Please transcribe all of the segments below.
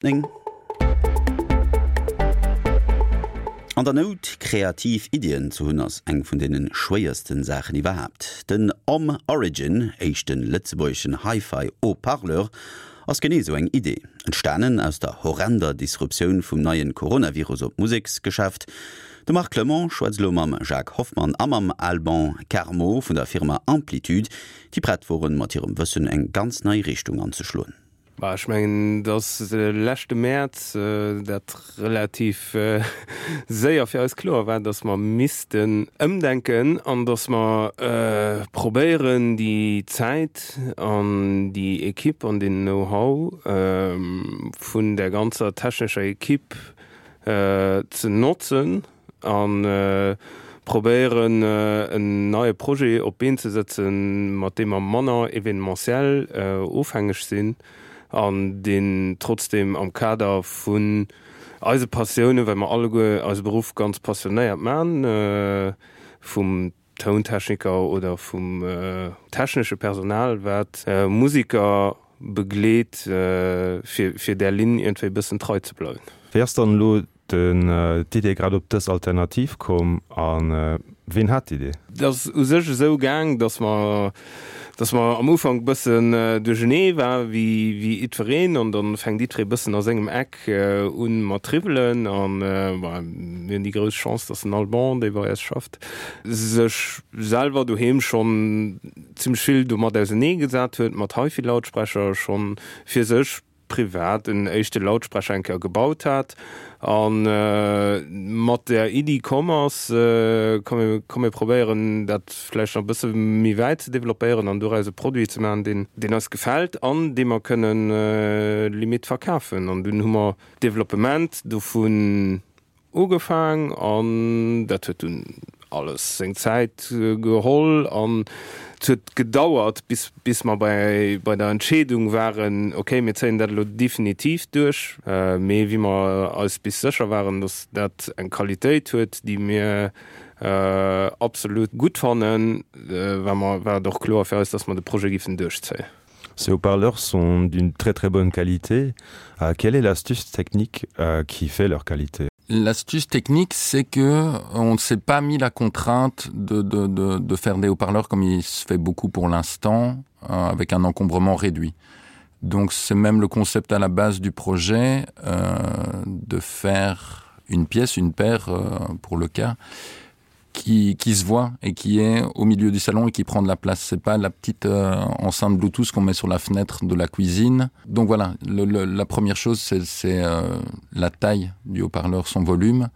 9. An der Nout kreativ Iddien ze hunn ass eng vun deene schwéiersten Saachen iwwerhaapt. Den Om Origin, éischte lëtzebuergeschen Hi-Fi Haut-Parleur, ass genee esou eng Idee. Entstanen aus der horrender Disruptioun vum neien Coronavirus op d'Museksgeschäft. De Marc Clement schwätzt elo mam Jacques Hoffmann a mam Alban Carmo vun der Firma Amplitude, déi prett woren mat hirem Wëssen eng ganz nei Richtung anzeschloen. Bah, ech mengen, dass de leschte Mäerz dat relativ séier fir eis kloer war, dass mer missten ëmdenken an dass mer probéieren, déi Zäit an déi Equipe an deen Know-how vun där ganzer technescher Equipe ze notzen, A probéieren en neie Projet op d'Been ze sëtzen, mat deem mer manner événementiel ofhängeg sinn an deen trotzdeem am Kader vun eise Passiounen, well mer alleguer eise Beruff ganz passionéiert man, vum Tountechniker oder vum technesche Personal, wat Musiker begleet, fir där Linn iergendwéi e bëssen trei ze bleiwen. Wéi ass dann elo d'Idee grad op dës Alternativ komm a ween hat d'Idee? Et ass u sech esou gaang, datt mer, datt mer am Ufank bëssen duerchenee war wéi wéi jiddwereen an dann fänkt jiddweree bëssen a sengem Eck un mat triwwelen an bon, mir hunn déi grouss Chance, datt den Alban, dee bei eis schafft, sech selwer doheem schonn zimmlech vill domat ausenee gesat huet, mat HiFi-Lautsprecher schonn fir sech privat en éischte Lautsprecher eng Kéier gebaut hat a mat der Iddi komm ass, komm komm mir probéieren dat vläicht nach e bësse méi wäit ze developpéieren an doraus e Produit ze maachen, deen deen eis gefält an dee mer kënnen limite verkafen. An dunn hu mer d'Developpement dovun Ugefaang an dat huet dunn alles seng Zäit geholl an et huet gedauert bis bis mer bei bei der Entscheedung waren, okay mir zéien dat elo definitiv duerch. Mee wéi mer eis bis sécher waren, datt dat eng Qualitéit huet déi mir absolut gutt fannen, war mer war et och kloer fir eis, datt mer de Projet giffen duerchzéien. Ces haut-parleurs sont d'une très très bonne qualité. Euh, quelle est l'astuce technique euh, qui fait leur qualité? L'astuce technique, c'est que on ne s'est pas mis la contrainte de, de, de, de faire des haut-parleurs comme il se fait beaucoup pour l'instant euh, avec un encombrement réduit. Donc c'est même le concept à la base du projet euh, de faire une pièce, une paire euh, pour le cas qui, qui se voit et qui est au milieu du salon et qui prend de la place. C'est pas la petite euh, enceinte Bluetooth qu'on met sur la fenêtre de la cuisine. Donc voilà, le, le, la première chose c'est euh, la taille du haut-parleur, son volume.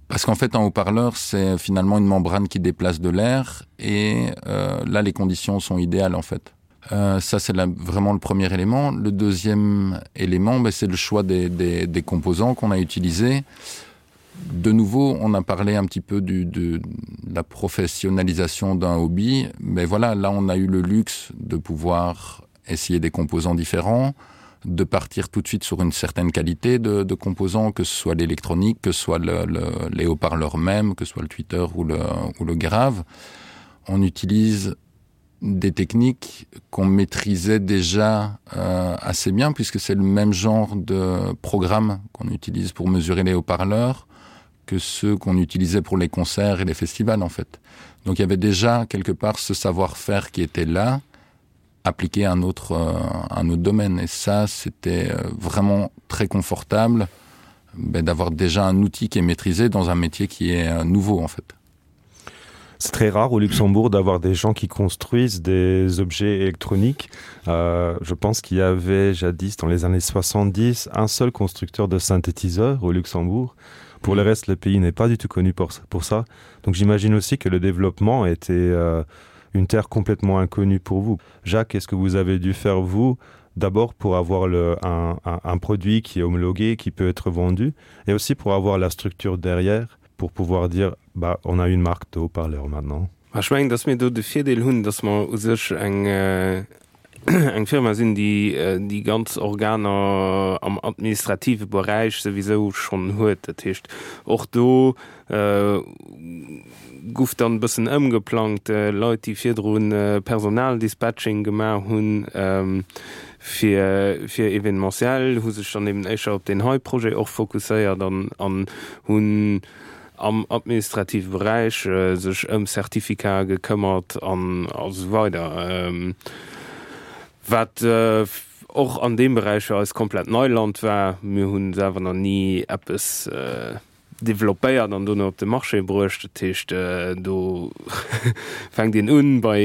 Parce qu'en fait un haut-parleur c'est finalement une membrane qui déplace de l'air et euh, là les conditions sont idéales en fait. Euh, ça c'est vraiment le premier élément. Le deuxième élément c'est le choix des, des, des composants qu'on a utilisés. De nouveau, on a parlé un petit peu du, de, de la professionnalisation d'un hobby, mais voilà, là on a eu le luxe de pouvoir essayer des composants différents, de partir tout de suite sur une certaine qualité de, de composants, que ce soit l'électronique, que ce soit le, le, les haut-parleurs même, que ce soit le Twitter ou le, ou le grave. On utilise des techniques qu'on maîtrisait déjà euh, assez bien puisque c'est le même genre de programme qu'on utilise pour mesurer les haut-parleurs que ceux qu'on utilisait pour les concerts et les festivals en fait. Donc il y avait déjà quelque part ce savoir-faire qui était là appliqué à un autre, euh, un autre domaine et ça c'était euh, vraiment très confortable d'avoir déjà un outil qui est maîtrisé dans un métier qui est euh, nouveau en fait. C'est très rare au Luxembourg d'avoir des gens qui construisent des objets électroniques. Euh, je pense qu'il y avait jadis dans les années 70 un seul constructeur de synthétiseurs au Luxembourg. Pour le reste, le pays n'est pas du tout connu pour, pour ça. Donc j'imagine aussi que le développement était euh, une terre complètement inconnue pour vous. Jacques, est-ce que vous avez dû faire vous d'abord pour avoir le, un, un, un produit qui est homologué, qui peut être vendu, et aussi pour avoir la structure derrière pour pouvoir dire bah, on a une marque de haut-parleur maintenant. Ech mengen, dass mir do de Virdeel hunn, dass mer u sech eng eng Firma sinn, déi déi ganz Organer am administrative Beräich souwisou schonn huet. Dat heescht, och do guff dann e bëssen ëmgeplangt. Leit, déi virdru Personaldispatching gemaach hunn. Fir fir Evenementiel, hu sech dann eben éischter op deen hei Projet och fokusséiert an an hunn am administrative Beräich sech ëm Certificate gekëmmert an a sou weider. Wat och an deem Beräich fir eis komplett Neiland war. Mir hu selwer nach ni eppes developpéiert an dono op de Marché bruecht. Dat heescht, do fänkt een un bei,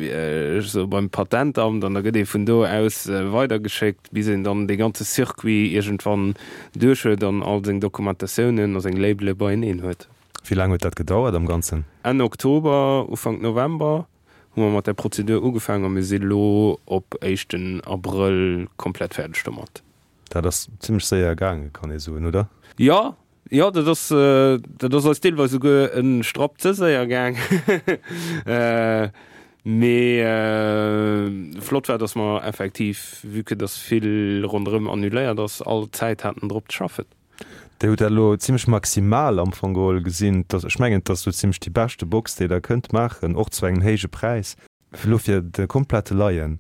ech soe beim Patentamt an da gëtt ee vun do aus weidergeschéckt, bis een dann dee ganze Circuit iergendwann duerch huet an all seng Dokumentatiounen a seng Labele beieneen huet. Wéi laang huet dat gedauert am Ganzen? Enn Oktober, Ufank November hu mer mat där Prozedur ugefaangen a mir si lo op éischten Abrëll komplett fäerdeg domat. Dat ass zimmlech séier gaangen, kann ee soen, oder? Jo, jo, dat ass, dat ass eis deelweis esouguer e Strapp ze séier gaang. Mee flott war, dass mer effektiv, vue que dass vill ronderëm annuléiert ass, all Zäit haten drop ze schaffen. Dir hutt dat elo zimmlech maximal am Fong geholl gesinn. Ech mengen, et ass esou zimmlech déi beschte Box, déi Der kënnt maachen, och zu engem héije Präis. Elo fir de komplette Laien,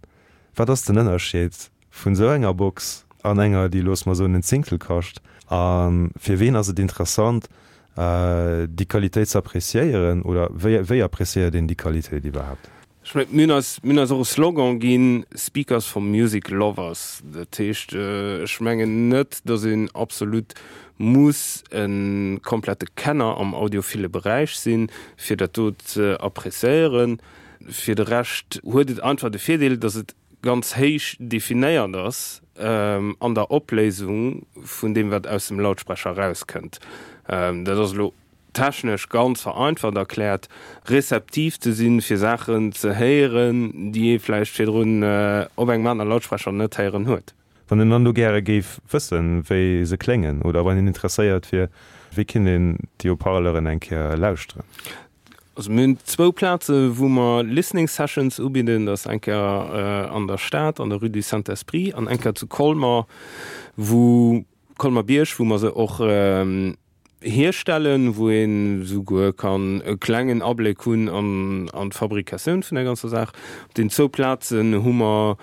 wat ass den Ënnerscheed vun esou enger Box an enger, déi, loosse mer soen, en Zéngtel kascht? A fir ween ass et interessant, déi Qualitéit ze appréciéieren? Oder wéi, wéi appréciéiert een déi Qualitéit iwwerhaapt? Ech mengen, mir hunn eis, mir hunn eis och e Slogan ginn, Speakers for Music Lovers. Dat heescht, ech mengen net, datt een absolut muss e komplette Kenner am audiophile Beräich sinn, fir dat do ze appréciéieren. Fir de Rescht huet et einfach de Virdeel, datt et ganz héich definéiert ass an der Opléisung vun deem, wat aus dem Lautsprecher erauskënnt. Dat ass elo technesch ganz vereinfacht erkläert, rezeptiv ze sinn, fir Saachen ze héieren, déi ee vläicht virdrun op engem anere Lautsprecher net héieren huet. Wann een dann do gäre géif wëssen, wéi se kléngen oder wann een interesséiert wier, wéi kinnt een déi Haut-parleuren eng Kéier lauschteren? Also mir hunn zwou Plaze wou mer Listening Sessions ubidden. Dat ass eng Kéier an der Stad, an der Rue du Saint-Esprit an eng Kéier zu Colmer, wou, Colmer-Bierg, wou mer se och hierstellen, wou een esouguer kann e klengen Abléck hunn an d'Fabrikatioun vun der ganzer Saach. Op den zwou Plazen hu mer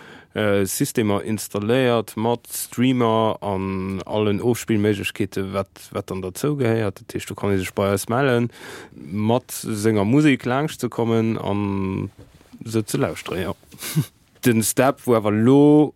Systemer installéiert mat Streamer an allen Ofspillméiglechkeeten, wat wat dann derzou gehéiert. Dat heescht, do kann ee sech bei eis mellen, mat senger Musek laanscht ze kommen an se ze lauschteren, jo. Den Step, wou awer elo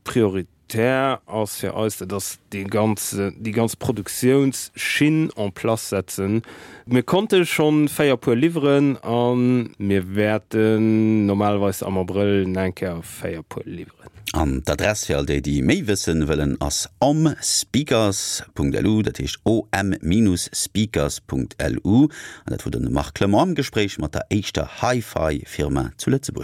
Prioritär ass fir eis, dat ass dee ganze, déi ganz Produktiounsschinn en place setzen. Mir konnte schonn 4 Puer liwweren a mir wäerten normalerweis am Abrëll nach eng Kéier 4 Puer liwweren. An d'Adress fir all déi, déi méi wëssen wëllen, ass omspeakers.lu, dat heescht om-speakers.lu. An dat wor den Marc Clement am Gespréich mat der éischter Hi-Fi-Firma zu Lëtzebuerg.